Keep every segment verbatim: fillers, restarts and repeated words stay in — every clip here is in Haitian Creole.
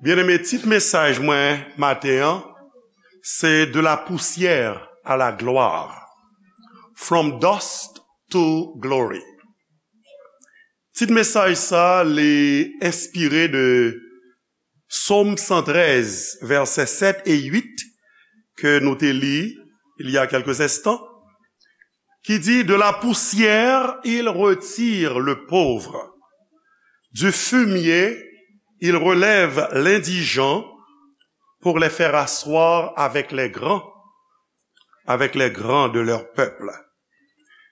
Byeneme, tit mesaj mwen maten an, se De la poussière à la gloire, From Dust to Glory. Tit mesaj sa, li enspire de Sòm san trèz, vèsè sèt e uit, ke nou te li il y a quelques instants, qui dit, De la poussière, il retire le pauvre. Du fumier, il relève l'indigent pour les faire asseoir avec les grands, avec les grands de leur peuple.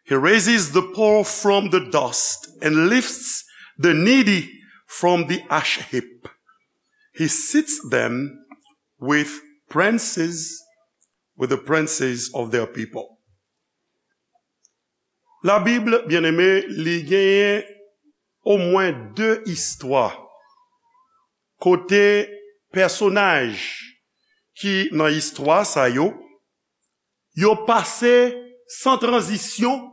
He raises the poor from the dust and lifts the needy from the ash heap. He seats them with princes, with the princes of their people. La Bible, byeneme, li genyen omwen de istwa kote pèsonaj ki nan istwa sa yo, yo pase san tranzisyon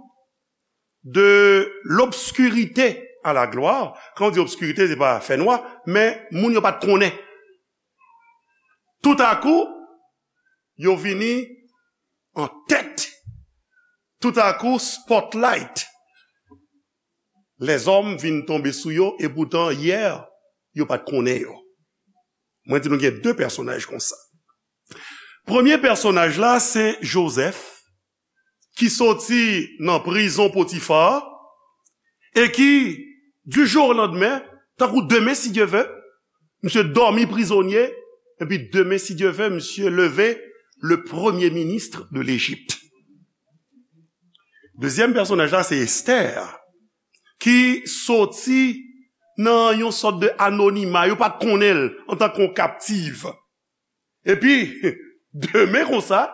de l'obscurité à la gloire. Kan w di obskirite, se pa fènwa, men moun yo pa t konnen. Toutakou, yo vini an tèt. Toutakou, spotlight. Lèzòm vin tonbe sou yo, e poutan, yè, yo pa t konnen yo. Mwen di nou gen de pèsonaj konsa. Premye pèsonaj la, se Jozèf, ki soti nan prizon Potifa, e ki, du jour au lendemain, tankou demen, si Dye vle, misye dòmi prizonye, epi demen, si Dye vle, misye leve, le premier ministre de l'Égypte. Dezyèm pèsonaj la, se Esther, ki soti nan yon sòt de anonima, yo pa t konnen l antanke yon kaptiv. Epi, demen konsa,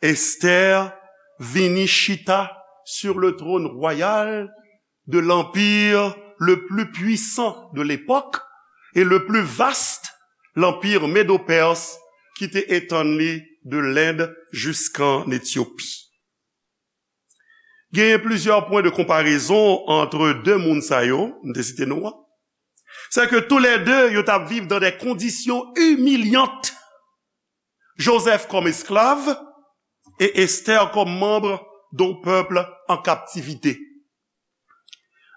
Esther vini chita sur le trône royal de l'empire le plus puissant de l'époque et le plus vaste, l'empire médo-perse, ki te etann li de Lend jiskan Etyopi. Genyen plizyè pwen de konparezon ant de moun sa yo, m te site non an. Se ke toulède, yo t ap viv dans des conditions humiliantes. Joseph comme esclave et Esther comme membre d'un peuple en captivité.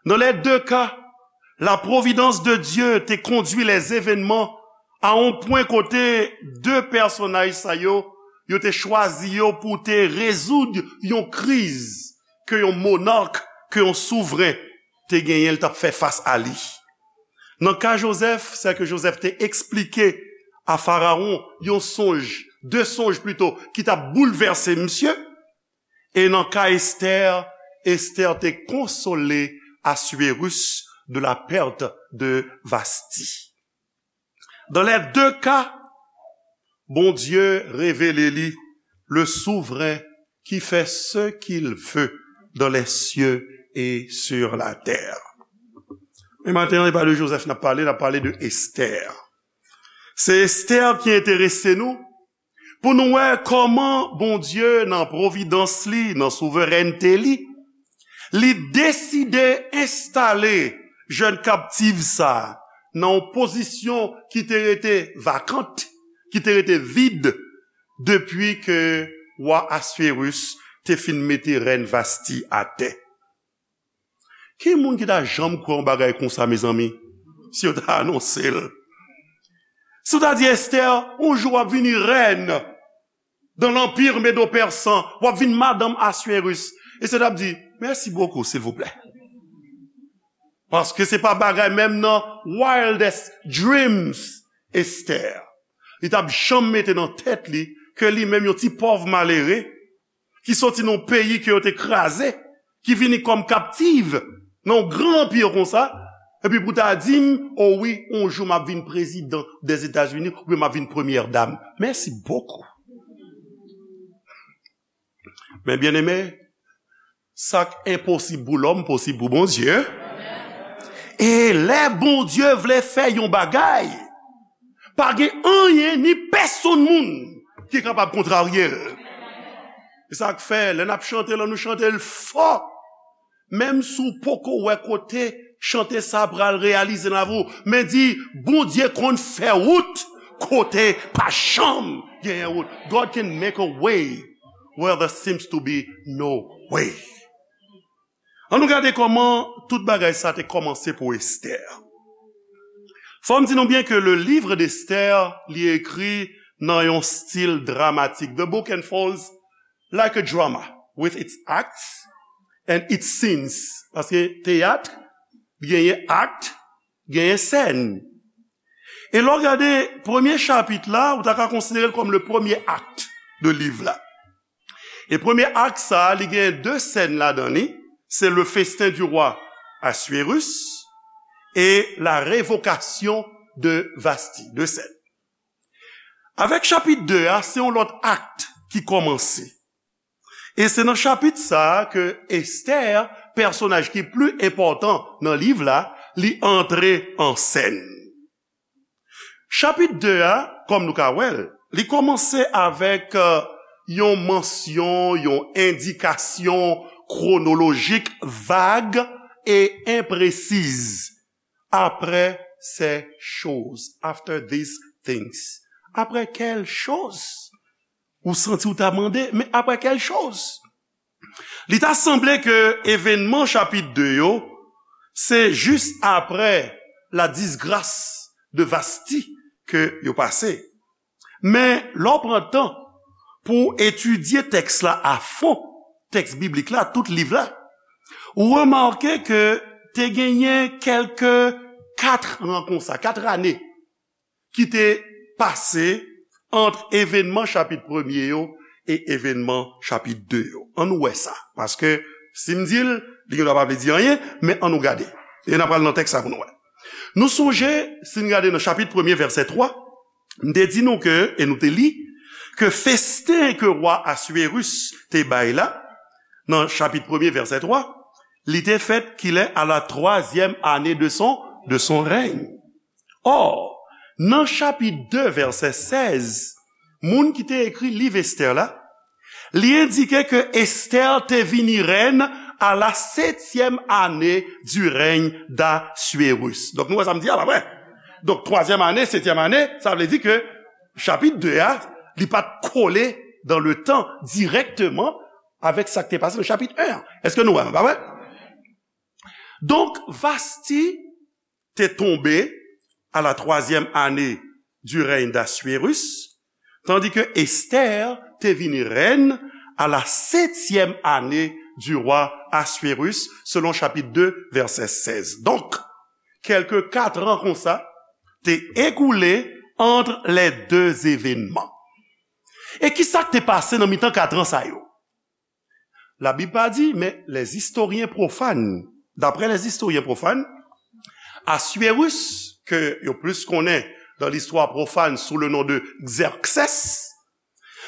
Dans les deux cas, la providence de Dieu te conduit les événements à un point kote de pèsonaj sa yo, yo te chwazi yo pou te rezoud yon kriz ke yon monark, ke yon souvren te genyen, l t ap fè fas a li. Nan ka Jozèf, se ke Jozèf te eksplike a Farawon yon sonj, de sonj plito, ki t ap boulvèse misye. E nan ka Esther, Esther te konsole Assuérus de la perte de Vasti. Dans les deux cas, Bondye revele li le souvren qui fait ce qu'il veut dans les cieux et sur la terre. Men maten an, e pa de Jozèf n ap pale, n ap pale de Esther. Se Esther ki enterese nou, pou nou wè kòman Bondye, nan pwovidans li, nan souverènte li, li deside enstale jèn kaptiv sa a nan yon pozisyon ki te rete vakant, ki te rete vid, depi ke wa Assuérus te fin mete rèn Vasti atè. Ki moun ki ta janm kwè yon bagay konsa, mezanmi, si yo ta anonse l? Si w ta di Esther, yon jou w ap vini rèn dans l'empire médo-persan, w ap vin madanm Assuérus. Esther t ap di, mèsi bokou, silvouplè. Paske se pa bagay menm nan wildest dreams, Esther. Li t ap janm mete nan tèt li ke li menm yon ti pòv malere, ki soti nan yon peyi ke yo te kraze, ki vini kòm kaptiv nan yon gran anpi konsa, epi pou ta di m, o wi, yon jou m ap vin prezidan dèzetazini, oubyen m ap vin premyè dam. Mèsi bokou. Men byeneme, sa k enposib pou lòm, posib pou Bondye. E lè Bondye vle fè yon bagay, pa gen anyen ni pèsonn moun ki kapab kontrarye l. E sa k fè, lè n ap chante l, nou chante l fò. Menm si w poko wè kote chante sa pral reyalize nan lavi w, men di, Bondye konn fè wout kote pa janm genyen wout. God can make a way where there seems to be no way. Ann nou gade kòman tout bagay sa te kòmanse pou Esther. Fò m di nou byen ke le livre d'Esther, li ekri nan yon stil dramatik. The book unfolds like a drama, with its acts and its scenes. Paske teyat, genyen akt, genyen sèn. E lè w gade premye chapit la, ou ta ka konsidere l kòm le premye akt de liv la. E premye akt sa, li gen de sèn ladan li. Se le festin du roi Assuérus et la révocation de Vasti. De sèn. Avèk chapit de a, se yon lòt akt ki kòmanse. E se nan chapit sa a ke Esther, pèsonaj ki pli enpòtan nan liv la, li antre an sèn. Chapit de a, kòm nou ka wè l, li kòmanse avèk, euh, yon mansyon, yon endikasyon kwonolojik vag e enpresiz. Après ces choses, after these things. Après quelles choses? Ou santi w ta mande, men après quelles choses? Li ta sanble ke evènman chapit de yo, se jis apre la disgras de Vasti ke yo pase. Men, lè w pran tan pou w etidye tèks la a fon, tèks biblik la, tout liv la, ou remake ke te genyen kèlke kat an konsa, kat ane ki te pase ant evènman chapit premye yo e evènman chapit de yo. Ann nou wè sa, paske si m di l, li gendwa pa vle di anyen, men ann nou gade. E n ap pral nan tèks la pou nou wè. Nou sonje, si n gade nan chapit premye, vèsè twa, m te di nou ke, e nou te li, ke festen ke wa Assuérus te bay la, nan chapit premye, vèsè twa, li te fèt kilè? À la troisième année de son, de son règne. Or, nan chapit de, vèsè sèz, moun ki te ekri liv Esther la, li endike ke Esther te vini rèn à la septième année du règne d'Assuérus. Donk, nou wè sa m di a, pa vre? Donk, twazyèm ane, setyèm ane, sa vle di ke chapit de a, li pa t kole dans le temps directement avec sa ki te pase nan chapit en an. Èske nou wè, pa vre? Donk, Vasti te tonbe à la troisième année du règne d'Assuérus, tandis que Esther te vini rèn à la septième année du roi Assuérus, selon chapitre deux, verset seize. Donk, kèlke kat an konsa te ekoule entre les deux événements. E ki sa k te pase nan mitan kat an sa yo? Labib pa di, men les historiens profanes, d'après les historiens profanes, Assuérus, ke yo plis konnen dans l'histoire profane sous le nom de Xerxès,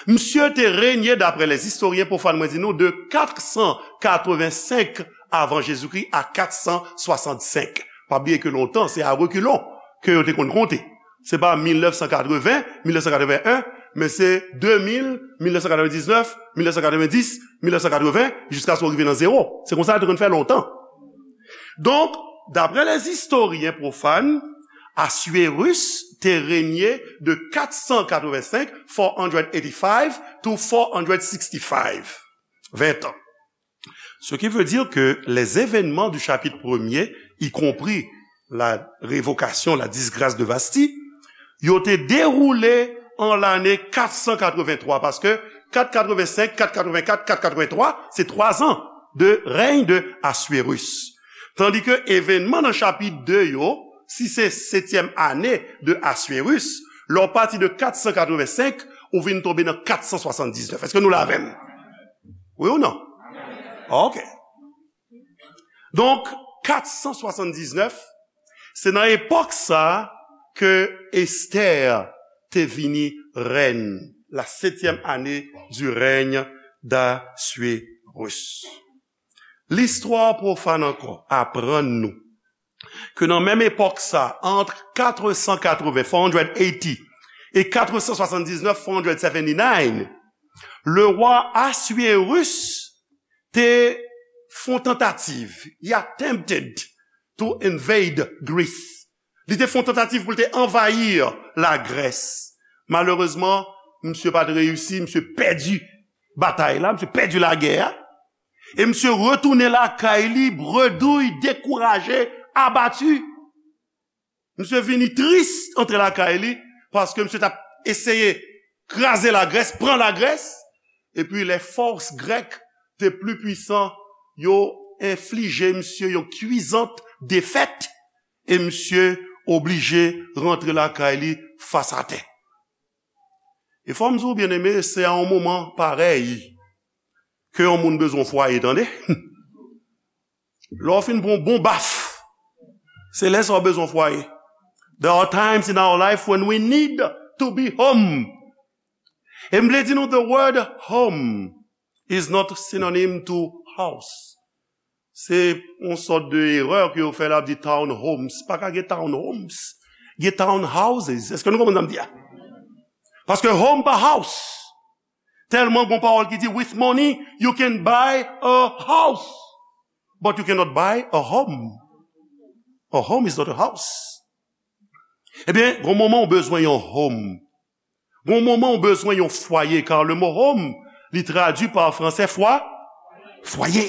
misye te renye, d'après les historiens profanes, mwen di nou, de kat san katrevensenk avan Jezikri a kat san swasannsenk. Pa bliye ke lontan, se a rekilon ke yo te konn konte. Se pa mil nèf san katreven, mil nèf san katreven en, men se de mil, mil nèf san katrevendiznèf, mil nèf san katrevendis, mil nèf san katreven, jiskaske w rive nan zewo. Se konsa yo te konn fè lontan. Donk, d'après les historiens profanes, Assuérus te renye de kat san katrevensenk, four hundred eighty-five, to four hundred sixty-five. Ven tan. Ce qui veut dire que les événements du chapitre premier, y compris la révocation, la disgrâce de Vasti, yo te dewoule an lane kat san katrevenntwa, paske kat katrevensenk, kat katrevenkat, kat katrevenntwa, se twa zan de règne de Assuérus. Tandis que événement nan chapit de yo, si se setyèm ane de Assuérus, lè w pati de kat san katrevensenk, ou vin tonbe nan kat san swasanndiznèf. Èske nou la avè m? Wi ou non? Ok. Donk, kat san swasanndiznèf, se nan epòk sa a ke Esther te vini rèn, la septième année du règne d'Assuérus. Listwa pwofàn ankò aprann nou ke nan menm epòk sa, entre quatre cent quatre-vingts, four hundred eighty, e quatre cent soixante-dix-neuf, four hundred seventy-nine, le roi Assuérus te fè yon tantativ. He attempted to invade Greece. Li te fè yon tantativ pou l te anvayi Lagrès. Malerezman, misye pa t reyisi, misye pèdi batay la, misye pèdi lagè a. E misye retounen lakay li, bredouy, dekouraje, abati. Misye vini tris antre lakay li, paske misye t ap eseye kraze Lagrès, pran Lagrès. Epi lè fòs grèk te pli pwisan, yo enflije misye yon kwizant defèt, e misye oblije rantre lakay li fas atè. E fò m di w, byeneme, se a yon moman parèy ke yon moun bezwen fwaye, tande. Lè w fin pran yon bon baf, se lè sa w bezwen fwaye. There are times in our life when we need to be home. E m vle di nou, the word home is not synonym to house. Se yon sòt de erè ke yo fè la, di town homes. Pa ka gen town homes. Gen town houses. Èske nou konprann sa m di a? Paske home pa house. Tèlman gon pawòl ki di, with money, you can buy a house, but you cannot buy a home. A home is not a house. Ebyen, gon moman ou bezwen yon home. Gon moman ou bezwen yon fwaye, car le mot home, li tradui pa fransè fwa, fwaye.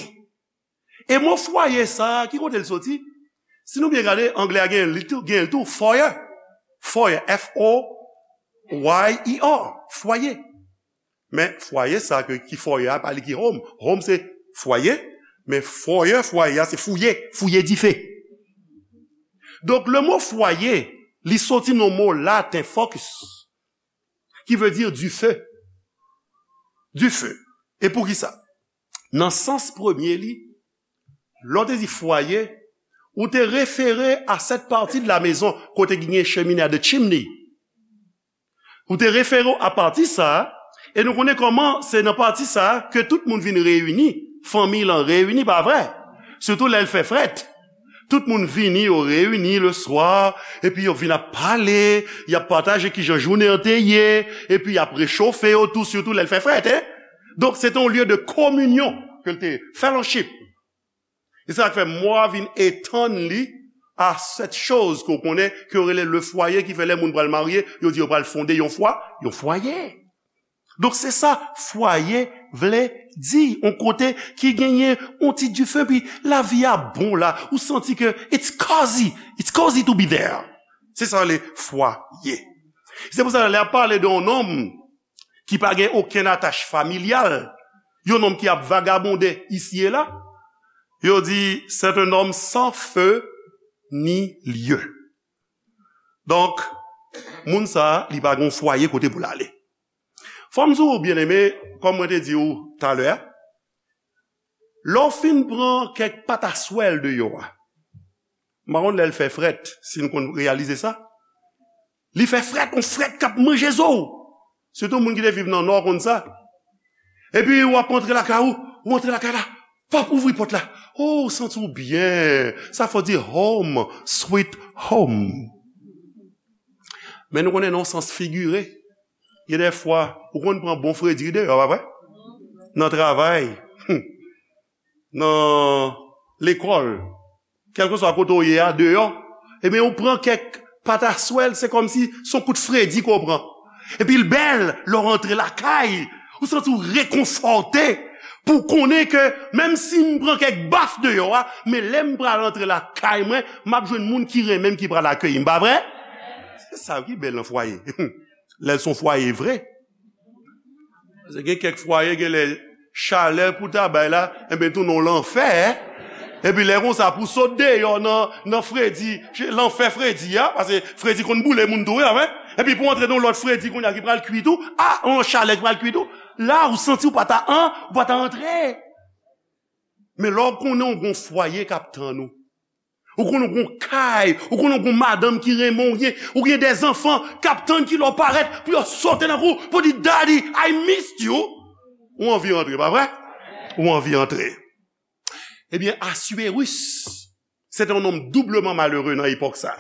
E mo fwaye sa a, ki kote l soti? Si nou byen gade, anglè a gen li tou, gen l tou, foyer. Foyer, F O Y E R, fwaye. Men fwaye sa a ke, ki foyer a, pa li ki home. Home se fwaye, men foyer, fwaye a se fouye, fouye dife. Donk, le mo fwaye, li soti nan mo laten focus, ki vle di dife. Dife. E poukisa? Nan sans premye li, lè w te di fwaye, ou te refere a cette partie de la maison kote ki gen chemine a, the chimney. Ou te refere w a pati sa a, e nou konnen kòman se nan pati sa a ke tout moun vin reyini, fanmi lan reyini, pa vre? Sitou lè l fè frèt. Tout moun vini, yo reyini le swa, epi yo vin ap pale, y ap pataje kijan jounen an te ye, epi y ap rechofe yo tou, sitou lè l fè frèt, en. Donk, se te yon lye de kominyon ke l te ye, fellowship. E sa k fè mo a vin etann li a cette chose ke w konnen, ke yo rele le foyer, ki fè lè moun pral marye, yo di yo pral fonde yon fwa, yon fwaye. Donk, se sa fwaye vle di, yon kote ki genyen yon ti dife, pi lavi a bon la, ou santi ke it's cozy, it's cozy to be there. Se sa le fwaye. Se pou sa, lè y ap pale de yon nonm ki pa gen okenn atach familyal, yon nonm ki ap vagabonde isi e la, yo di, c'est un homme sans feu ni lieu. Donk, moun sa a, li pa gen yon fwaye kote pou l ale. Fò m di w, byeneme, kòm mwen te di w talè a, lè w fin pran kèk pataswèl deyò a, m pa konn lè l fè frèt, si n konn reyalize sa. Li fè frèt, yon frèt k ap manje zo w. Sitou moun ki te viv nan Nò konn sa. Epi w ap antre lakay ou, ou antre lakay la, p ap ouvri pòt la. Oh, ou santi w byen. Sa fò di home, sweet home. Men nou konnen nan yon sans figire, gen de fwa, ou konn pran bon fredi deyò, pa vre? Nan travay, nan lekòl, kèlkeswa kote w ye a, deyò, ebyen, ou pran kèk pataswèl, se kòmsi se yon kout fredi ke w pran. Epi l bèl, lè w rantre lakay, ou santi w rekonfòte pou w konnen ke menm si m pran kèk baf deyò a, men lè m pral antre lakay mwen, m ap jwenn moun ki renmen m ki pral akeyi m, pa vre? Se sa ki bèl nan fwaye. Lè l se yon fwaye vre. Paske gen kèk fwaye, gen lè chalè pou ta bay la, enben, tounen w lanfè. Epi lè konsa, pou sot deyò nan, nan fredi, lanfè fredi a, paske fredi konn boule moun tou, wi, pa vre? Epi pou antre nan yon lòt fredi kounye a ki pral kui tou, a, yon lòt chalè ki pral kui tou, la, ou santi w pa ta an, ou pa ta antre. Men lè w konnen w gon fwaye k ap tann ou, ou konnen w gon kay, ou konnen w gon madanm ki renmen w, ou gen, ou gen de zanfan k ap tann ki lè w parèt pou yo sote nan kou, pou di, "Daddy, I missed you." Ou anvi antre, pa vre? Ou anvi antre. Ebyen, Assuérus, se te yon nonm doubleman malere nan epòk sa.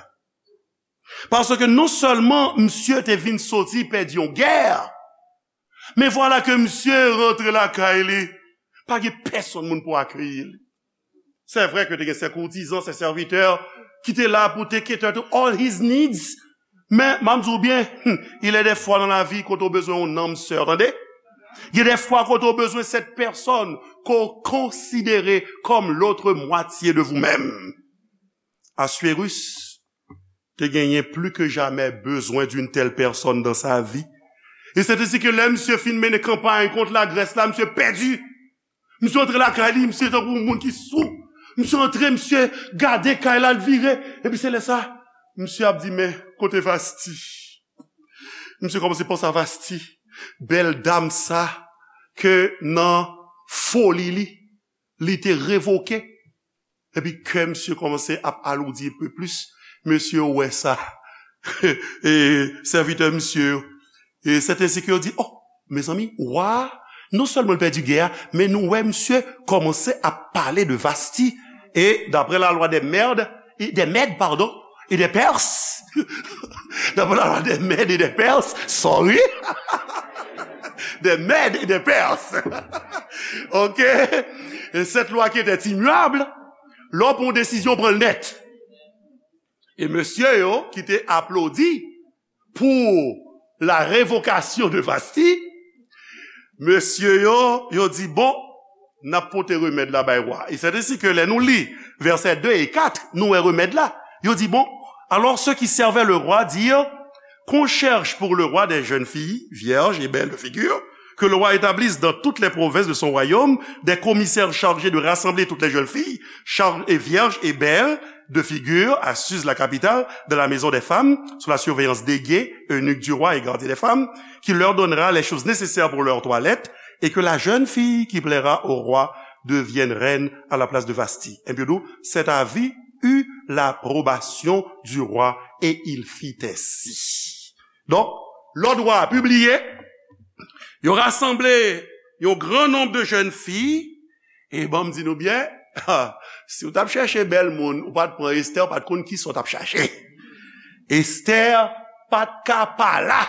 Paske non sèlman misye te vin soti pèdi yon gè, men vwala ke misye rantre lakay li, pa gen pèsonn moun pou akeyi li. Se vre ke te gen se koutizan, se sèvitè ki te la pou te cater to all his needs. Men, m ap di w byen, il y a des fois dans la vie kote w bezwen yon nanm sè, tande? Il y a des fois kote w bezwen cette personne ke w konsidere comme l'autre moitié de vous-même. Assuérus te genyen plus que jamais besoin d'une telle personne dans sa vie. E se te si ke lè misye fin mennen kanpay kont Lagrès la, misye pèdi. Misye antre lakay li, misye tankou yon moun ki sou. Misye antre, misye gade kay la, l vire. Epi se lè sa, misye ap di, "Men, kote Vasti?" Misye kòmanse panse a Vasti. Bèl dam sa, ke nan foli li, li te revoke. Epi kè misye kòmanse ap aloudi un peu plus. Mesye yo wè sa. E sèvitè misye yo. E sèten se ke yo di, "Oh, mezanmi, wa, non sèlman l pèdi gè a, men nou wè misye kòmanse ap pale de Vasti." E daprè la lwa des Mèdes, e des Mèdes, pardon, et des Perses, d'après la loi des Mèdes et des Perses, sorry, des Mèdes et des Perses. Ok? Et cette loi qui était immuable, lè w pran yon desizyon, pran l nèt. E mesye yo ki te aplodi pour la révocation de Vasti, mesye yo, yo di, "Bon, n ap pote remèd la bay wa." E c'est ainsi que lè nou li vèsè de e kat, nou wè remèd la. Yo di, "Bon, alors ceux qui servaient le roi dirent qu'on cherche pour le roi des jeunes filles, vierges et belles de figure, que le roi établisse dans toutes les provinces de son royaume des commissaires chargés de rassembler toutes les jeunes filles, char- et vierges et belles de figure à Suse, la capitale, dans la maison des femmes, sous la surveillance d'Hégée, eunuque du roi et gardien des femmes, qui leur donnera les choses nécessaires pour leur toilette, et que la jeune fille qui plaira au roi devienne reine à la place de Vasti." Ebyen, cet avis eut l'approbation du roi, et il fit ainsi. Donk, lòd wa a pibliye, yo rasanble yon gran nonb de jèn fi, e ban m di nou byen, si w t ap chèche bèl moun, ou pa t pran Estè, ou pa t konn kisa w t ap chache. Estè pa t ka pa la.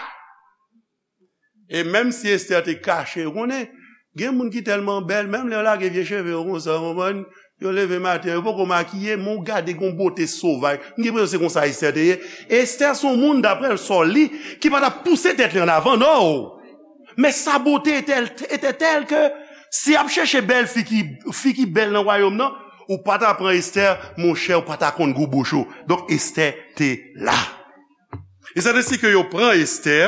E menm si Estè te kache, ou konnen, gen moun ki tèlman bèl, menm lè yo lage vye cheve yo konsa, w konprann, yo leve maten, yo poko makiye, men w gade gon bote sovaj. M gen enpresyon se konsa Estè te ye. Estè se yon moun, daprè l, sa w li, ki pa t ap pouse tèt li an avan, no! Men sa bote etè, etè tèl ke si y ap chèche bèl fi ki, fi ki bèl nan wayòm nan, ou pa ta pran Estè, monchè, ou pa ta konn gou bouch ou. Donk, Estè te la. E c'est ainsi que yo pran Estè,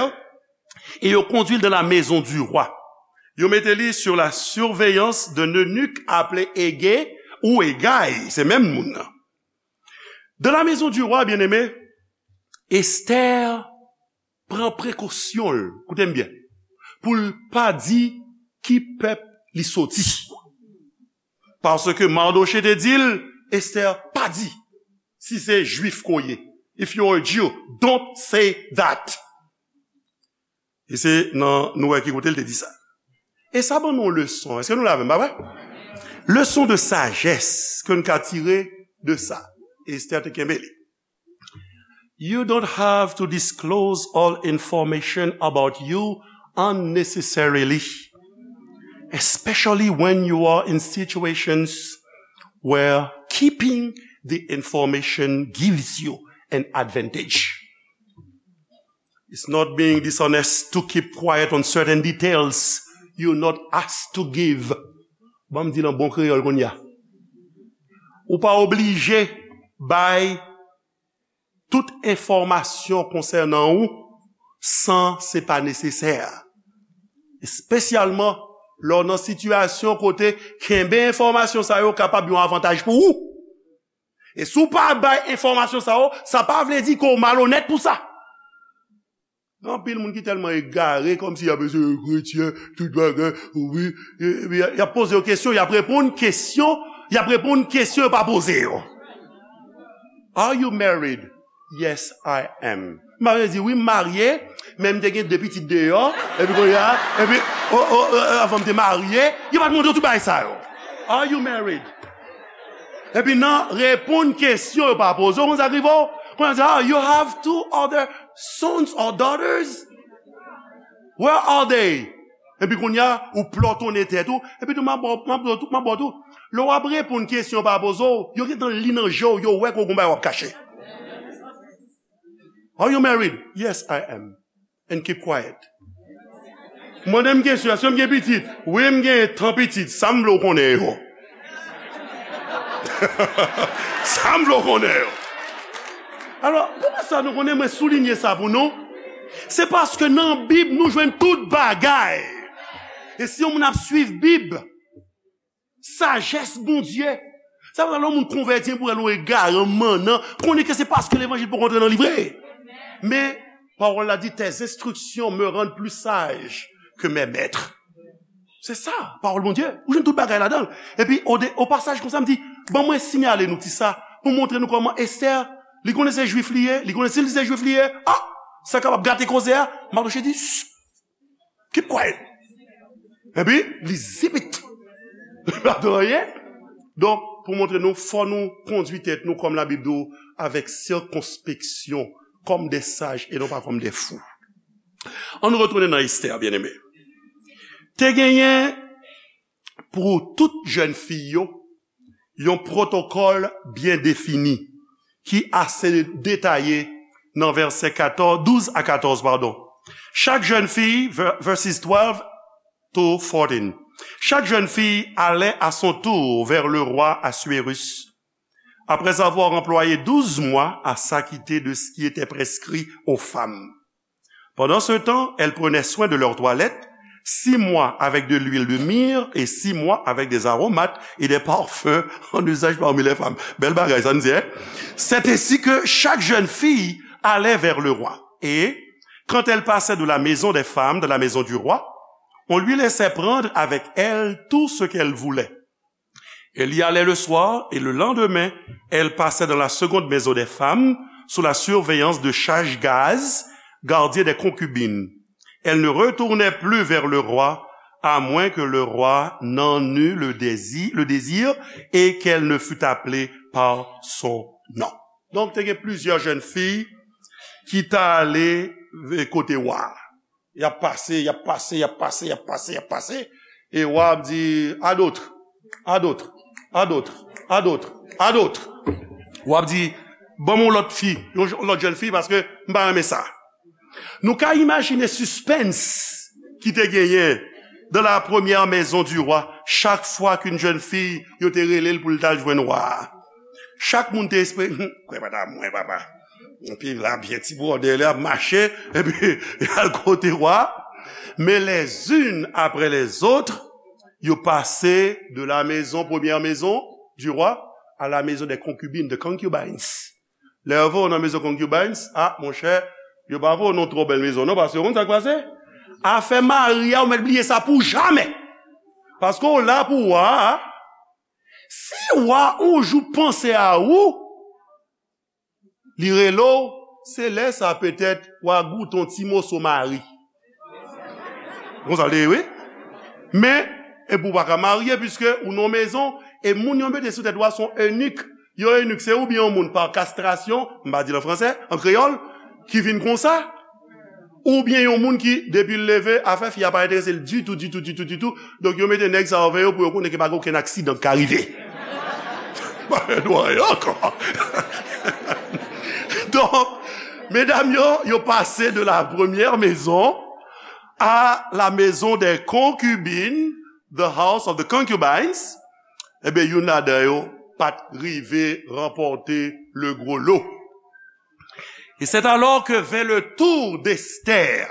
et yo kondui l dans la maison du roi. Yo mete li sur la surveillance d'un eunuque appelé Hégée ou Hégaï, se menm moun nan. Dans la maison du roi, bien-aimé, Estè pran prekosyon l, koute m byen, pou l pa di ki pèp li soti. Paske Mardochée te di l, Estè, pa di si se Jwif ke w ye. If you are a Jew, don't say that. E se nan, nou wè ki kote l te di sa. E sa ban nou yon leson. Èske nou la avè m, pa vre? Leson de sajès ke n ka tire de sa. Estè te kenbe li. You don't have to disclose all information about you unnecessarily, especially when you are in situations where keeping the information gives you an advantage. It's not being dishonest to keep quiet on certain details you're not asked to give. Ban m di l an bon kreyòl kounye a. Ou pa oblije bay tout enfòmasyon konsènan ou san se pa nesesè. Espesyalman lè w nan sitiyasyon kote kenbe enfòmasyon sa yo kapab yon avantaj pou ou. E si w pa bay enfòmasyon sa yo, sa pa vle di ke w malonèt pou sa. Gen anpil moun ki tèlman egare, kòmsi y ap eseye kretyen, tout bagay, wi, e, epi y ap poze yo kesyon, y ap reponn kesyon, y ap reponn kesyon yo pa poze yo. Are you married? Yes, I am. M ap di, "Wi, m marye, men m te gen de pitit deyò, epi kounye a, epi, o, o, o, avan m te marye," yo pa t mande w tout bagay sa yo. Are you married? Epi nan reponn kesyon yo pa poze w, konn sa k rive w? Kounye a di, "Ah, you have two other sons or daughters? Where are they?" Epi kounye a, ou plòtonnen tèt ou. Epi tou, m ap ba w, m ap ba w tou, m ap ba w tou. Lè w ap reponn kesyon yo pa poze w, yo gentan li nan je w, yo wè ke w gon bagay w ap kache. Are you married? Yes, I am. And keep quiet. Mande m kesyon, èske m gen pitit? Wi, m gen tan pitit. Sa m vle w konnen yo. Sa m vle w konnen yo. Alò, poukisa nou konnen mwen soulinye sa pou nou? Se paske nan Bib, nou jwenn tout bagay. E si yon moun ap swiv Bib, sajès Bondye, sa vle lè yon moun konvèti pou el yon egare, mannan, konnen ke se paske levanjil poko antre nan li vre. Men, pawòl la di, tes instructions me rendent plus sage que mes maîtres. Se sa, pawòl Bondye. Ou jwenn tout bagay ladan l. Epi, o de, o pasaj konsa, m di, ban mwen siyale nou ti sa, pou montre nou kòman Esther, li konnen se jwif li ye, li konnen si li se jwif li ye, a, sa kapab gate koze a, Mardochée di, "Shh, keep quiet." Epi, li zipit. Li pa di anyen. Donk, pou montre nou, fò nou kondui tèt nou kòm Labib di w, avèk sikonspeksyon, kòm de saj e non pa kòm de fou. Ann retounen nan Esther, byeneme. Te genyen pou tout jèn fi yo yon pwotokòl byen defini ki ase detaye nan vèsè katòz, douz a katòz, padon. Chaque jeune fille, ver- verses twelve to fourteen. Chaque jeune fille allait à son tour vers le roi Assuérus, après avoir employé douze mois à s'acquitter de ce qui était prescrit aux femmes. Pendant ce temps, elles prenaient soin de leur toilette, six mois avec de l'huile de myrrhe et six mois avec des aromates et des parfums en usage parmi les femmes. Bèl bagay, sa n di, hein? C'est ainsi que chaque jeune fille allait vers le roi. Et quand elle passait de la maison des femmes dans la maison du roi, on lui laissait prendre avec elle tout ce qu'elle voulait. Elle y allait le soir et le lendemain, elle passait dans la seconde maison des femmes sous la surveillance de Chashgaz, gardien des concubines. Elle ne retournait plus vers le roi, à moins que le roi n'en eût le désir, le désir et qu'elle ne fût appelée par son nom. Donk, te gen plizyè jèn fi ki t ale kote wa a. Y ap pase, y ap pase, y ap pase, y ap pase, y ap pase. E wa ap di, "À d'autres, à d'autres, à d'autres, à d'autres, à d'autres." W ap di, "Ban m yon lòt fi, yon j- lòt jèn fi, paske m pa renmen sa." Nou ka imajine sispens ki te genyen dans la première maison du roi, chak fwa ke yon jèn fi, yo te rele l pou l t al jwenn wa a. Chak moun te espere, "Hum, kwè pa ta mwen, papa." Epi la, byen ti bwòdè, li ap mache, epi y al kote wa. Mais les unes après les autres, yo pase de la maison, première maison du roi, à la maison des concubines, de concubines. Lè yo voye w nan maison concubines, a, monchè, yo pa voye w nan twò bèl maison, non, paske ou konn sa k pase? Afè mari a, ou mèt bliye sa pou jamè. Paske w la pou wa a. Si wa yon jou panse a ou, li rele w, se lè sa petèt w a goute yon ti moso mari. Konsa l te ye, wi. Men, epi w pa ka marye, piske ou nan mezon, e moun yo mete sou tèt w a se yon enik. Yon enik, se oubyen yon moun pa kastrasyon, m pa di l an fransè, an kreyòl, ki vin konsa, oubyen yon moun ki, depi l leve, afè fi a pa enterese l ditou, ditou, ditou, ditou. Donk, yo mete nèg sa yo avè yo pou yo konnen ke pa gen okenn aksidan k ka rive. Pa gen dwa ankò. Donk, medam yo, yo pase de la première maison à la maison des concubines, the house of the concubines. Ebyen, youn ladan yo pa t rive ranpòte le gros lot. Et c'est alors que vint le tour d'Esther.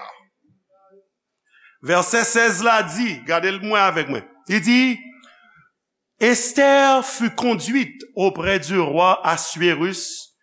Vèsè sèz la di, gade l mwen avèk mwen. Li di, Esther fut conduite auprès du roi Assuérus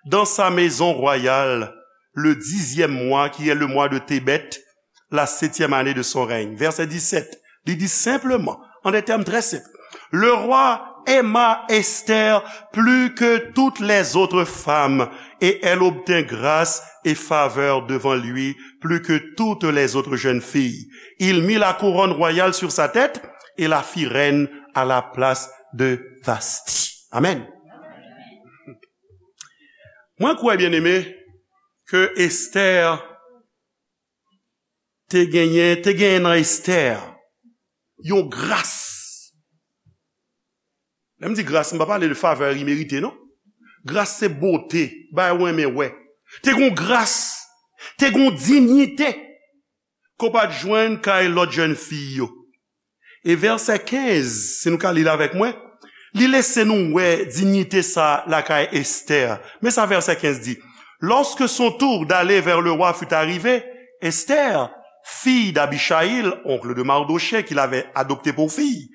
dans sa maison royale le dixième mois, qui est le mois de Tébeth, la septième année de son règne. Vèsè disèt, li di senpleman, en des termes très simples, le roi aima Esther plus que toutes les autres femmes, et elle obtint grâce et faveur devant lui plus que toutes les autres jeunes filles. Il mit la couronne royale sur sa tête et la fit reine à la place de Vasthi. Amen. Mwen kwè, byeneme, ke Esther te genyen, te genyen nan Estè yon gras. Lè m di gras, m pa pale de favè imerite, non. Gras se bote, bagay ou renmen wè. Te gon gras, te gon diyite ke w pa t jwenn kay lòt jèn fi yo. E vèsè kenz, si nou ka li l avèk mwen, li lese nou wè diyite sa lakay Estè. Men sa vèsè kenz di, Lorsque son tour d'aller vers le roi fut arrivé, Esther, fille d'Abichaïl, oncle de Mardochée, qui l'avait adoptée pour fille,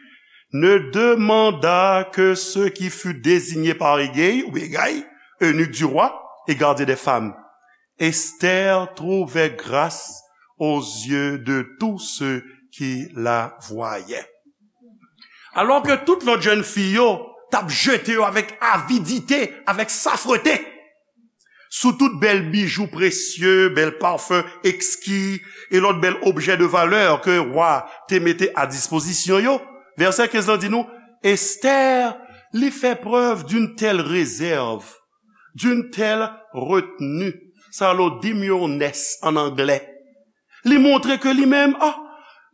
ne demanda que ce qui fut désigné par Égay, ou Égay, eunuque du roi et gardien des femmes. Esther trouvait grâce aux yeux de tous ceux qui la voyaient. Alò ke tout lòt jèn fi yo t ap jete yo avèk avidite, avèk safrete, sou tout bèl bijou presye, bèl pafen ekski, e lòt bèl objè de valè ke wa te mete a dispozisyon yo. Vèsè kenz lan di nou, Esther, li fè preuve d'une telle réserve, d'une telle retenue. Sa rele demureness an anglè. Li montre ke li menm, ah,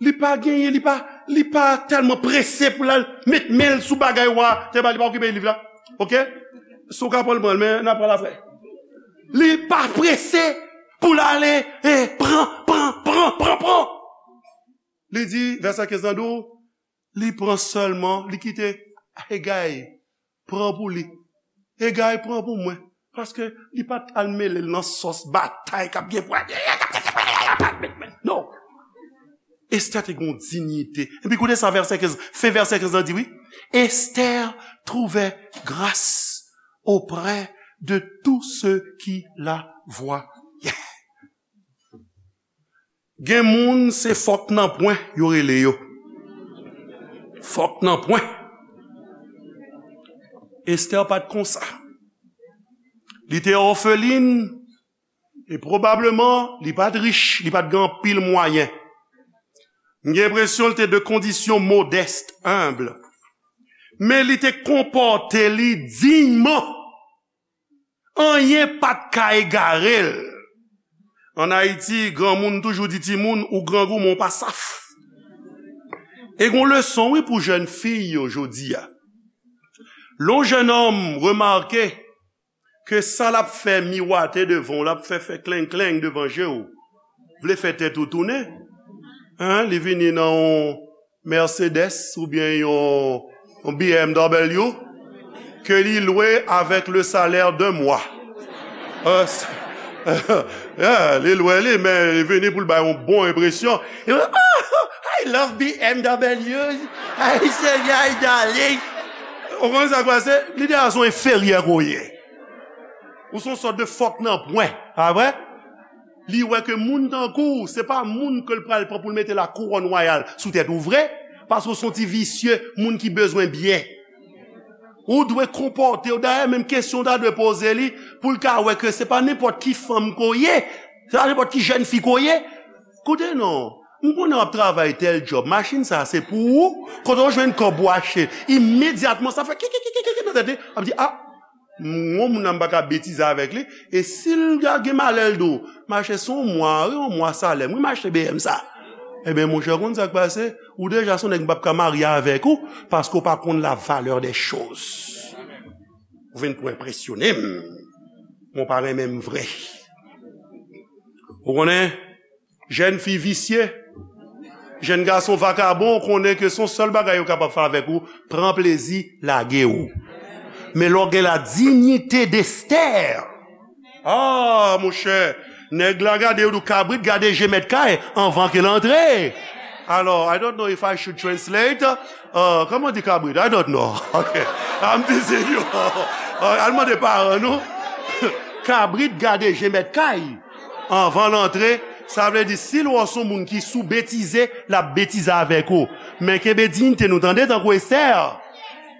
li pa genyen, li pa, li pa tèlman prese pou l al met men l sou bagay wa te ba li, pa okipe liv la. Oke? Si w ka pran l, pran l, men n a pran l apre. Li pa prese pou l ale, eh, pran, pran, pran, pran, pran. Li di, vèsè kenz lan di w, li pran sèlman, li kite Egay pran pou li. Egay pran pou mwen. Paske li pa t al mele l nan sòs batay k ap gen pou... Non. Estè te gen yon diyite. Epi koute sa vèsè kenz, fen vèsè kenz lan di wi. Esther trouvait grâce auprès de tous ceux qui la voyaient. Gen moun se fòk nan pwen yo rele yo. Fòk nan pwen. Esther pa t konsa. Li te òfelin e pwobableman li pa t rich, li pa t gen anpil mwayen. M gen enpresyon li te de kondisyon modèst, enb. Men li te konpòte li diyman. Anyen pa t ka egare l. Ann Ayiti, granmoun toujou di timoun, ou grangou, men w pa saf. E gon leson, wi, pou jèn fi yo jodi a. Lè yon jèn òm remake ke sa l ap fè miwate devan w, l ap fè fè kleng kleng devan je w, vle fè tèt ou tounen. Hein, li vini nan yon Mercedes oubyen yon, yon B M W ke li lwe avèk le salaire d'un mois. Euh, yeah, li lwe li, men li vini pou l bay yon bon enpresyon. E, "Oh, I love B M W. Ay, Senyè, ay, darling." Ou konn sa k pase? Li deja se yon enferyè ke w ye. Ou se yon sòt de fòk nan pwen, pa vre? Li wè ke moun tankou w, se pa moun ke l pral pran pou l mete la kouwòn wayal sou tèt ou vre, paske w se yon ti visye, moun ki bezwen byen. Ou dwe konpòte w, dayè, menm kesyon w ta dwe poze li, pou l ka wè ke se pa nenpòt ki fanm ke w ye, se pa nenpòt ki jèn fi ke w ye. Koute non, m konnen w ap travay tèl djòb, machin sa a se pou ou, kote w jwenn kòb ou achte, imedyatman sa fè kikikikiki nan tèt li, ap di, "Ah, m gon moun nan m pa ka betize avèk li." E si l gen malè l di w, "Mache se yon mwa, wi, yon mwa salè m, wi, m achte B M sa." Ebyen, monchè, w konn sa k pase? Ou deja se yon nèg m p ap ka marye avèk ou, paske w pa konn la valeur des choses. Ou vin pou enpresyone m, men w pa renmen m vre. Ou konnen, jèn fi visye, jèn gason vakabon, ou konnen ke se yon sèl bagay yo kapab fè avèk ou, pran plezi, lage w. Men lè w gen la dignité d'Esther, ah, monchè, nèg la gade, yo di w kabrit gade je mèt kay anvan ke l antre. Alò, I don't know if I should translate. Uh, kòman di kabrit? I don't know. Ok. I'm teasing you. Uh, al mande paran nou. Kabrit gade je mèt kay anvan l antre. Sa vle di, si l wè w se yon moun ki sou betize, l ap betize avèk ou. Men kenbe diyite nou, tande, tankou Esther.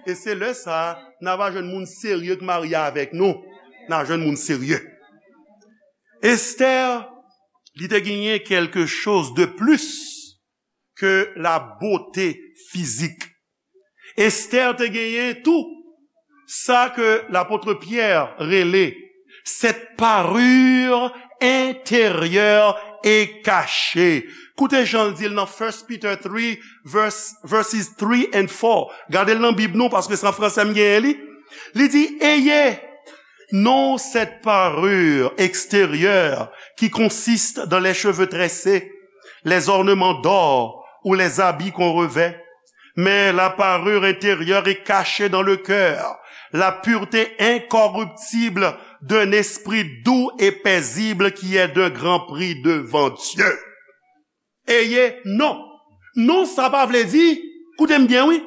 E se lè sa a, n a va jwenn moun serye k marye avèk nou. N a jwenn moun serye. Esther, li te genyen quelque chose de plus que la beauté physique. Esther te genyen tou sa ke lapot Pyè rele cette parure intérieure et cachée. Koute jan l di l nan First Peter three, verse, verses three and four. Gade l nan Bib nou, paske se an fransè m genyen li. Li di, ayez non cette parure extérieure qui consiste dans les cheveux tressés, les ornements d'or ou les habits qu'on revêt, mais la parure intérieure est cachée dans le cœur, la pureté incorruptible d'un esprit doux et paisible qui est d'un grand prix devant Dieu. Ayez non. Non, sa pa vle di, koute m byen, wi,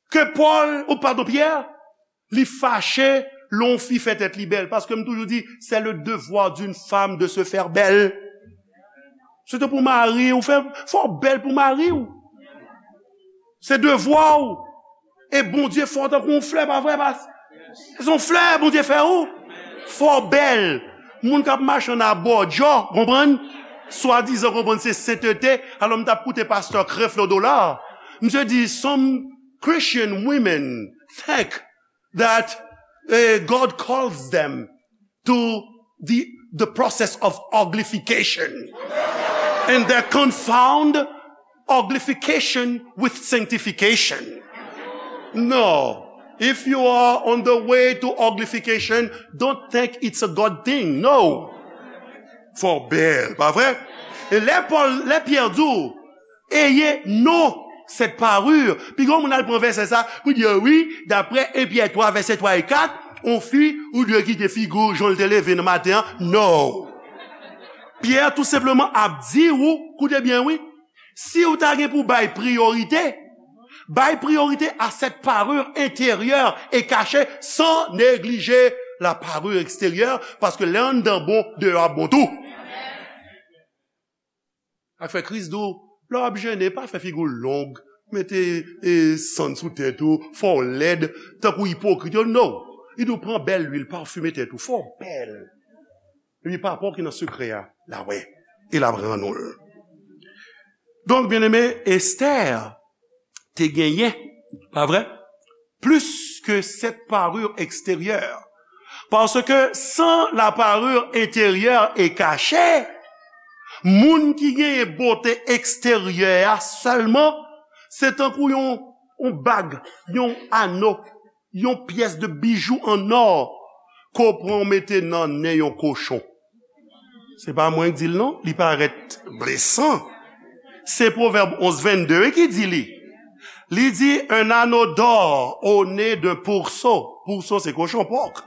ke Pòl, ou padon, Pyè, li fache lè yon fi fè tèt li bèl. Paske m toujou di, c'est le devoir d'une femme de se faire belle. Se te pou mari w, fè, fò w bèl pou mari w. Se devwa w. E Bondye fè w tankou yon flè, pa vre, pas? Se yon flè Bondye fè ou. Fò w bèl. Moun k ap mache ann abòdjò, konprann? Swadizan, konprann, se sentete. Alò, m t ap koute pastè Creflo Dollar. Misye di, some Christian women think that, eh, God calls them to the, the process of uglification. And they confound uglification with sanctification. No. If you are on the way to uglification, don't think it's a God thing. No. Fò w bèl, pa vre? E lè Pòl, lè Pyè di w, ayez non cette parure. Piga moun al pran vèsè sa pou di, wi, daprè en Pyè twa, vèsè twa e kat, on fi, ou dwe kite figi w jan l te leve nan maten an. No. Pyè tou senpleman ap di w, koute byen, wi, si w ta gen pou bay priyorite, bay priyorite à cette parure intérieure et cachée sans négliger la parure extérieure, paske lè anndan bon, deyò ap bon tou. Sa k fè Kris di w, lè w ap jene, pa fè figi w long, mete, e, sann sou tèt ou, fè w lèd, tankou ipokrit yo, no. Li di w pran bèl lwil, pafime tèt ou, fè w bèl. Epi Papa w ki nan sekrè a, l a wè, e l ap rann ou l. Donk, byeneme, Estè te genyen, pa vre? Plus que cette parure extérieure. Parce que sans la parure intérieure est cachée, moun ki genyen bote eksteryè a sèlman, se tankou yon, yon bag, yon ano, yon pyès de bijou an nò ke w pran w mete nan nen yon kochon. Se pa mwen k di l non, li parèt blesan. Se Pwovèb onz vennde wi ki di li. Li di, un anneau d'or au nez d'un pourceau. Pourceau, se kochon, pòk.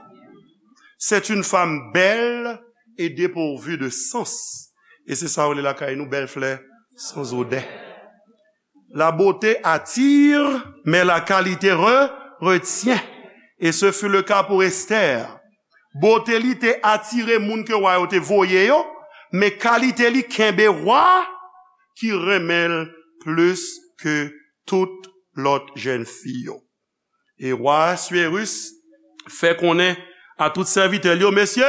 C'est une femme belle et dépourvue de sens. E se sa yo rele lakay nou, bèl flè, sans odeur. La beauté attire, mais la qualité re-, retient. Et ce fut le cas pour Esther. Bote li te atire moun ke wa yo te voye yo, men kalite li kenbe wa ki renmen l plis ke tout lòt jèn fi yo. E wa Aswérus fè konnen a tout sèvitè l yo, mesye,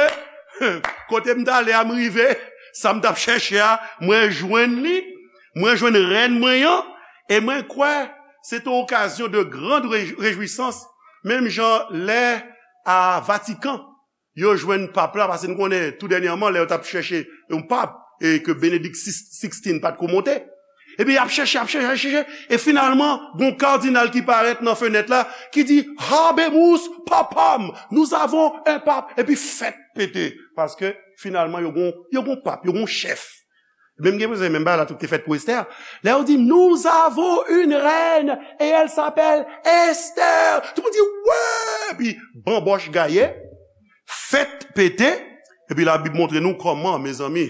kote m t ale a, m rive, sa m t ap chèche a, mwen jwenn li, mwen jwenn rèn mwen an, e mwen kwè se te okazyon de grande réj-, réjouissance, menm jan lè a Vatikan, yo jwenn pap la, paske nou konnen tou dènyèman, lè yo t ap chèche yon pap, e ke Benedict sixteen pa t ko monte. Epi y ap chèche, y ap chèche, y ap chèche, e finalman, gon kadinal ki parèt nan fenèt la, ki di, Habemus papam, nous avons un pape, epi fèt pete, paske finalman, yo gon, yo gon pap, yo gon chèf. Menm gen bezwen, menm bagay la tou te fèt pou Esther. Lè yo di, nous avons une reine et elle s'appelle Esther. Tout moun di, wè! Epi, banbòch gaye, fèt pete. Epi Labib montre nou kòman, mezanmi.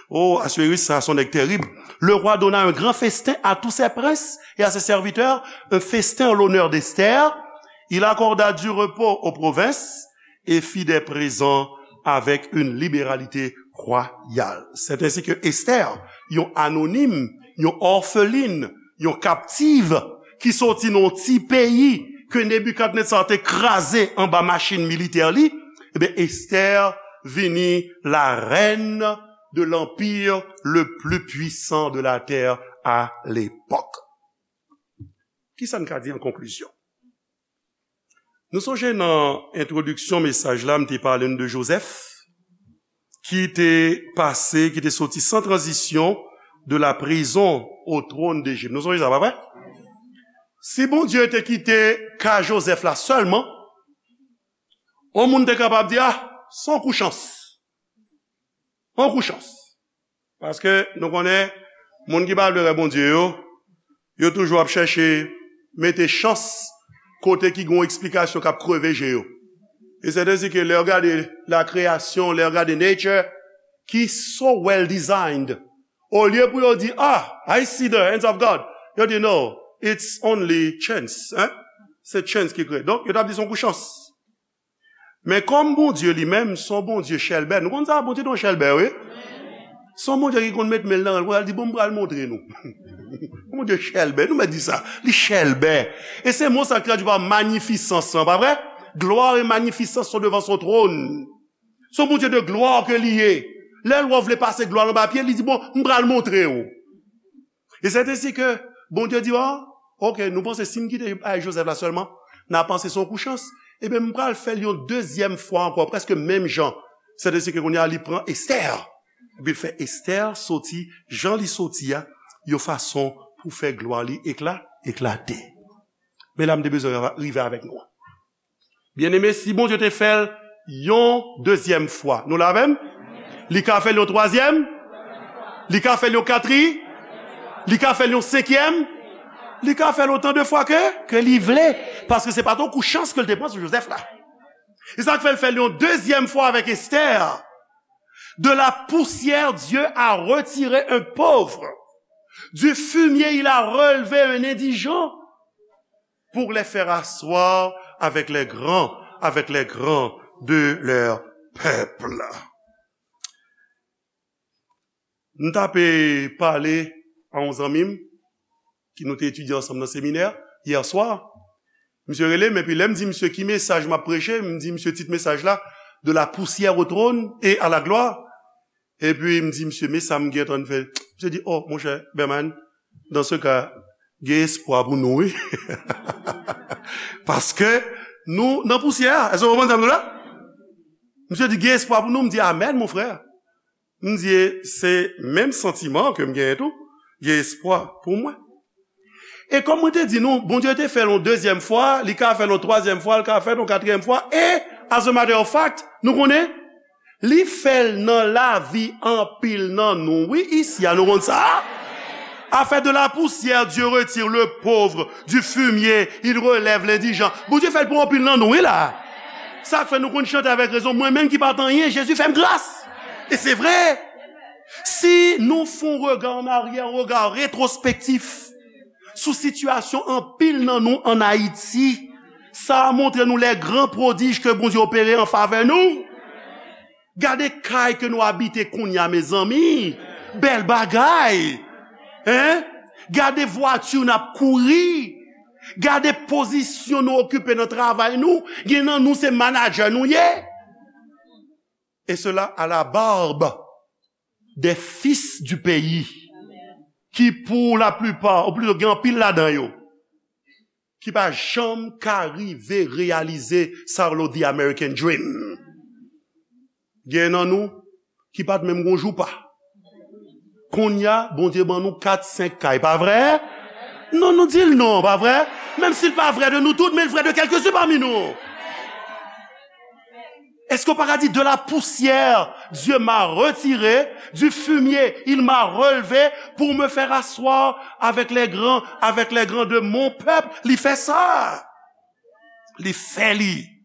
Oh, Aswérus, sa, se yon nèg terib. Le roi donna un grand festin à tous ses princes et à ses serviteurs, un festin en l'honneur d'Esther. Il accorda du repos aux provinces et fit des présents avec une libéralité royale. C'est ainsi que Esther, yon anonim, yon òfelin, yon kaptiv, ki soti nan yon ti peyi ke Nebikadnetza te kraze anba machin militè li, ebyen, Esther vini la reine de l'empire le plus puissant de la terre à l'époque. Kisa n ka di an konklizyon? Nou sonje nan entwodiksyon mesaj la, m te pale n de Jozèf, ki te pase, ki te soti san tranzisyon de la prison au trône d'Égypte. Nou sonje sa, pa vre? Si Bondye te kite ka Jozèf la sèlman, yon moun te kapab di, ah, se yon kou chans. Yon kou chans. Paske nou konnen, moun ki pa vle wè Bondye yo, yo toujou ap chèche mete chans kote ki gen yon eksplikasyon k ap kreve je yo. E sèten si ke lè w gade la création, lè w gade nature, ki so well designed, olye pou yo di, ah, I see the hands of God, yo di, no, it's only chance. Hein? Se chance ki kreye. Donk, yo t ap di se yon kou chans. Men kòm Bondye li menm, se yon Bondye chèlbè. Nou konn sa, Bondye te yon chèlbè, wi. Se yon Bondye ki konn met men l nan rèl, pou l di, bon, m pral montre nou. Bondye chèlbè, nou mèt di sa. Li chèlbè. E se mo sa k tradui pa magnificence lan, pa vre? Gloire et magnificence sont devant son trône. Se yon Bondye de glwa ke li ye. Lè l wè w vle pase glwa l anba pye, li di, bon, m pral montre w. E sèten si ke Bondye di, ah, ok, nou panse si m kite bagay Jozèf la sèlman, n a panse se yon kou chans. Ebyen, m pral fè l yon dezyèm fwa ankò, prèske menm jan. Sèten si ke kounye a, li pran Estè. Epi l fè Estè soti, jan li soti a, yon fason pou fè glwa li ekla, eklate. Men la, m te bezwen rive avèk nou. Byeneme, si Bondye te fè l yon dezyèm fwa, nou la avè m? Li ka fè l yon twazyèm? Li ka fè l yon katri? Li ka fè l yon senkyèm? Li ka fè l otan de fwa ke, ke li vle. Paske se pa t yon kou chans ke l te pran sou Jozèf la. E sa k fè l fè l yon dezyèm fwa avèk Estè. De la poussière, Dieu a retiré un pauvre. Du fumier, il a relevé un indigent pour les faire asseoir avec les grands, avec les grands de leur peuple. M t ap pale a yon zanmi m ki nou te etidye ansanm nan seminè yè swa. Misye rele m, epi lè m di misye ki mesaj m ap preche, m di misye tit mesaj la, De la poussière au trône et à la gloire. Epi m di misye, men sa m gentan fè. Misye di, oh, monchè, Berman, dans ce cas, gen espwa pou nou, wi. Paske nou nan pousyè a. Èske w konprann sa m di w la? Misye di, gen espwa pou nou. M di, amèn, mon frè. M di, se menm santiman ke m genyen tou. Gen espwa pou mwen. E kòm mwen te di nou, Bondye te fè l yon dezyèm fwa, li ka fè l yon twazyèm fwa, li ka fè l yon katriyèm fwa, e, as a matter of fact, nou konnen, li fè l nan lavi anpil nan nou. Wi, isi a, nou konn sa? A fait de la poussière, Dieu retire le pauvre, du fumier, il relève l'indigent. Bondye fè l pou anpil nan nou, wi la. Sa k fè nou konn chante avèk rezon, mwen menm ki pa t anyen, Jezi fè m gras. E se vre. Si nou fè yon rega an aryè, yon rega retwospektif sou sitiyasyon anpil nan nou ann Ayiti, sa a montre nou les grands prodiges ke Bondye opere an favè nou. Gade kay ke nou abite kounye a, mezanmi. Bèl bagay. Hein? Gade vwati n ap kouri. Gade pozisyon nou okipe nan travay nou. Gen nan nou se manadjè nou ye. Et cela à la barbe des fils du pays, ki pour la plupart, ou plito gen anpil ladan yo, ki pa janm ka rive reyalize sa yo rele the American dream. Gen nan nou ki pa t menm gon joupa. Kounye a, Bondye ban nou kat, senk kay, pa vre? Non, nou di l non, pa vre? Menm si l pa vre de nou tout, men l vre de kèlkesou pami nou. Èske w pa ka di, de la poussière, Dieu m'a retiré, du fumier, il m'a relevé, pour me faire asseoir avec les grands, avec les grands de mon peuple? Li fè sa. Li fè li.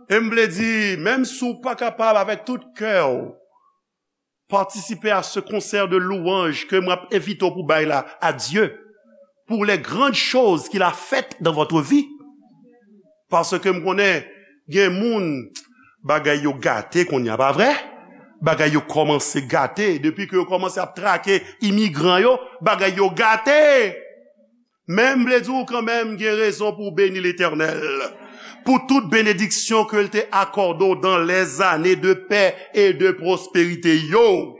E m vle di, menm si w pa kapab avèk tout kè w, participer à ce concert de louanges ke mwen ap envite w pou bay la à Dieu pour les grandes choses qu'il a faites dans votre vie. Paske m konnen gen moun, bagay yo gate kounye a, pa vre? Bagay yo kòmanse gate. Depi ke yo kòmanse ap trake imigran yo, bagay yo gate. Men m vle di w kanmenm, gen rezon pou w beni Letènèl pou tout benediksyon ke l te akòde w dans les années de paix et de prospérité yo.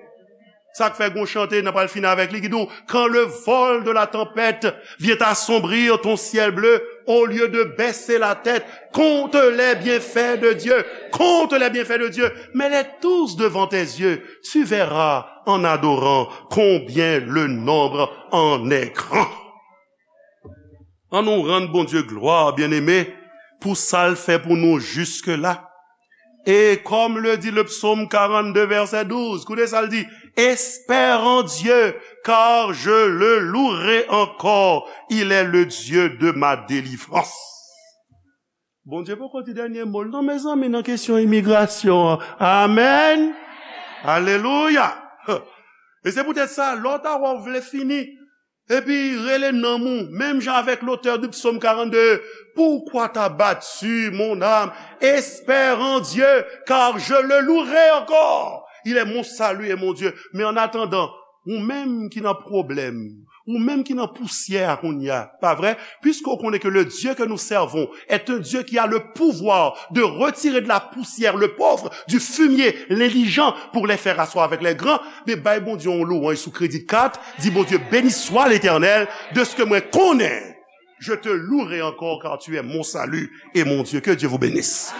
Sa k fè gon chante, n a pral fini avèk li, ki di w, quand le vol de la tempête vient assombrir ton ciel bleu, au lieu de baisser la tête, compte les bienfaits de Dieu, compte les bienfaits de Dieu, mets-les tous devant tes yeux, tu verras en adorant combien le nombre en est grand. Ann nou rann Bondye glwa, byeneme, pou sa l fè pou nou jiske la. Et comme le dit le psaume quarante-deux, verset douze, koute sa l di, espère en Dieu, car je le louerai encore, il est le Dieu de ma délivrance. Bondye poko di dènye mo l non, mezanmi, nan kesyon imigrasyon an. Amèn. Alelouya. E se poutèt sa, lè w ta wè w vle fini, epi rele nanm ou, menm jan avèk lotè di psaume quarante-deux, pourquoi t'abattue, mon âme? Espère en Dieu, car je le louerai encore. Il est mon salut et mon Dieu. Men an atandan, ou menm ki nan pwoblèm, ou menm ki nan pousyè a kounye a, pa vre? Puisque w konnen ke le Dieu que nous servons est un Dieu qui a le pouvoir de retirer de la poussière le pauvre, du fumier l'indigent, pour les faire asseoir avec les grands, men bay Bondye yon lwanj sou kredi kat, di Bondye, béni soit l'Éternel, de ce que mwen konnen, je te louerai encore car tu es mon salut et mon Dieu. Que Dieu vous bénisse.